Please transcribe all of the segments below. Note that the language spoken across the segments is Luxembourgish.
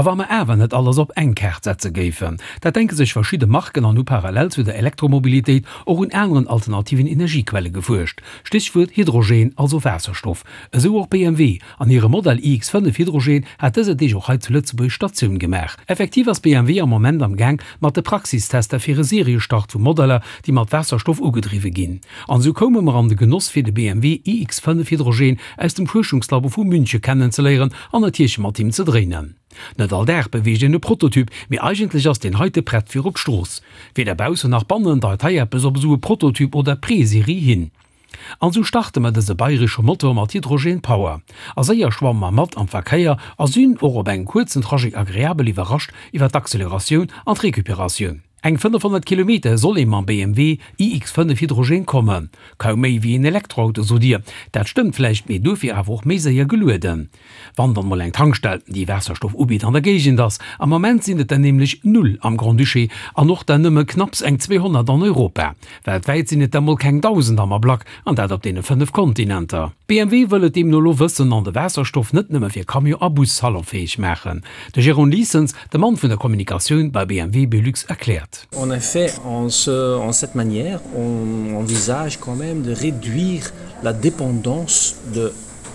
A wa mer awer net alles op eng Kaart setze géifen? Dat denke sech verschidde Marken an hu parallel zu der Elektromobilitéit och un aneren alternativen Energiequelle gefuerscht. Stéchwuert Hydrogen, also Waasserstoff. Esou och BMW. An hire Modell iX5 Hydrogen hat dëser Deeg och hei zu Lëtzebuerg Statioun gemaach. Effektiv ass BMW am Moment am Gaang mat de Praxistester fir e Seriestart vu Modeller, déi mat Waasserstoff ugedriwwe ginn. An esou koume mer an de Genoss fir de BMW iX5 Hydrogen aus dem Fuerschungslabo vu Münche kennenzeléieren an natierlech mat him ze dréinen. Net all Dag beweegt een e Prototyp, mee eigentlech ass deen heite prett fir op d'Strooss. Weder baussen nach bannen deit hei eppes op esou e Prototyp oder Preserie hin. An sou starte mer dëse bayresche Motor mat Hydrogen Power. A séier schwamme mer mat am Verkéier a sinn och op engem kuerzen Trajet agreabel iwwerrascht iwwer d'Acceleratioun an d'Recuperatioun. Eng 500 Kilometer soll ee mam BMW iX5 Hydrogen kommen. Kaum méi wéi een Elektroauto, sot Dir. Dat stëmmt vläicht, mee duerfir awer och méi séier gelueden. Wann dann mol eng Tankstell, déi Waasserstoff ubitt, an der Géigend ass. Am Moment sinn et der nämlech null am Grand-Duché an och der nëmme knapps eng 200 an Europa. Weltwäit sinn et der mol keng 1.000 am Ablack, an dat op deene 5 Kontinenter. BMW wëll et deemno elo wëssen an de Waasserstoff net nëmme fir Camion a Bus salonfäeg maachen. De Jérôme Liessens, de Mann vun der Kommunikatioun bei BMW Belux erkläert. En effet, en ce, en cette manière, on envisage quand même de réduire la dépendance de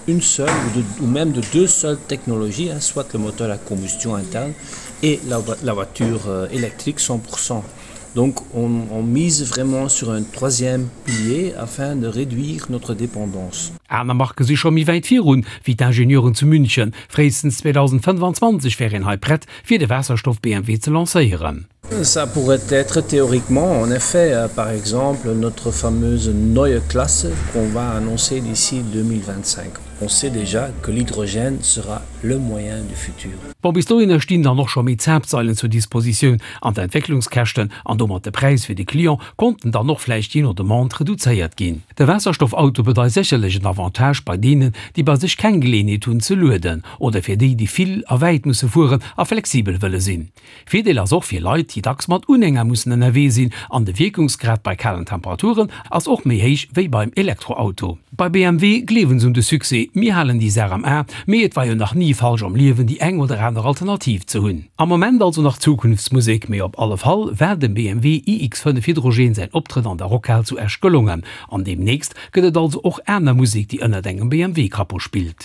une seule ou, de, ou même de deux seules technologies, hein, soit le moteur à combustion interne et la, la voiture euh, électrique 100%. Donc on, on mise vraiment sur un troisième pilier afin de réduire notre dépendance. Aner Marke si scho méi wäit virun, wéi d'Ingenieuren zu München. Fréistens 2025 wär een hei prett, fir de Waasserstoff-BMW ze lancéieren. Ça pourrait être théoriquement en effet euh, par exemple notre fameuse neue Klasse qu'on va annoncer d'ici 2025. On sait déjà que l'hydrogène sera le moyen du futur. Bon, bis dohinner stinn dann och scho méi Zapfsailen zur Dispositioun an d'Entwécklungskäschten an domat de Präis fir de Client konnten dann och vläicht jee no Demande reduzéiert ginn. De Waasserstoffauto bedeit sécherlech en Avantage bei deenen, déi bei sech keng Geleeënheet hunn ze lueden oder fir déi, déi vill a wäit musse fueren a flexibel wëlle sinn. Virdeel ass och fir Leit, déi dacks mat Unhänger mussen ënnerwee sinn an de Wierkungsgrad bei kalen Temperaturen ass och méi héich wéi beim Elektroauto. Bei BMW gleewen se un de Succès, mir halen déi Saach am A, mee et war jo nach ni falsch am Liewen déi eng oder aner Alternativ ze hunn. Am Moment also nach Zukunftsmusek, mee op alle Fall war dem BMW iX5 Hydrogen säin Optrëtt an der Rockhal zu Esch gelongen an deemnächst gëtt et also och aner Musek déi ënnert engem BMW-Capot spillt.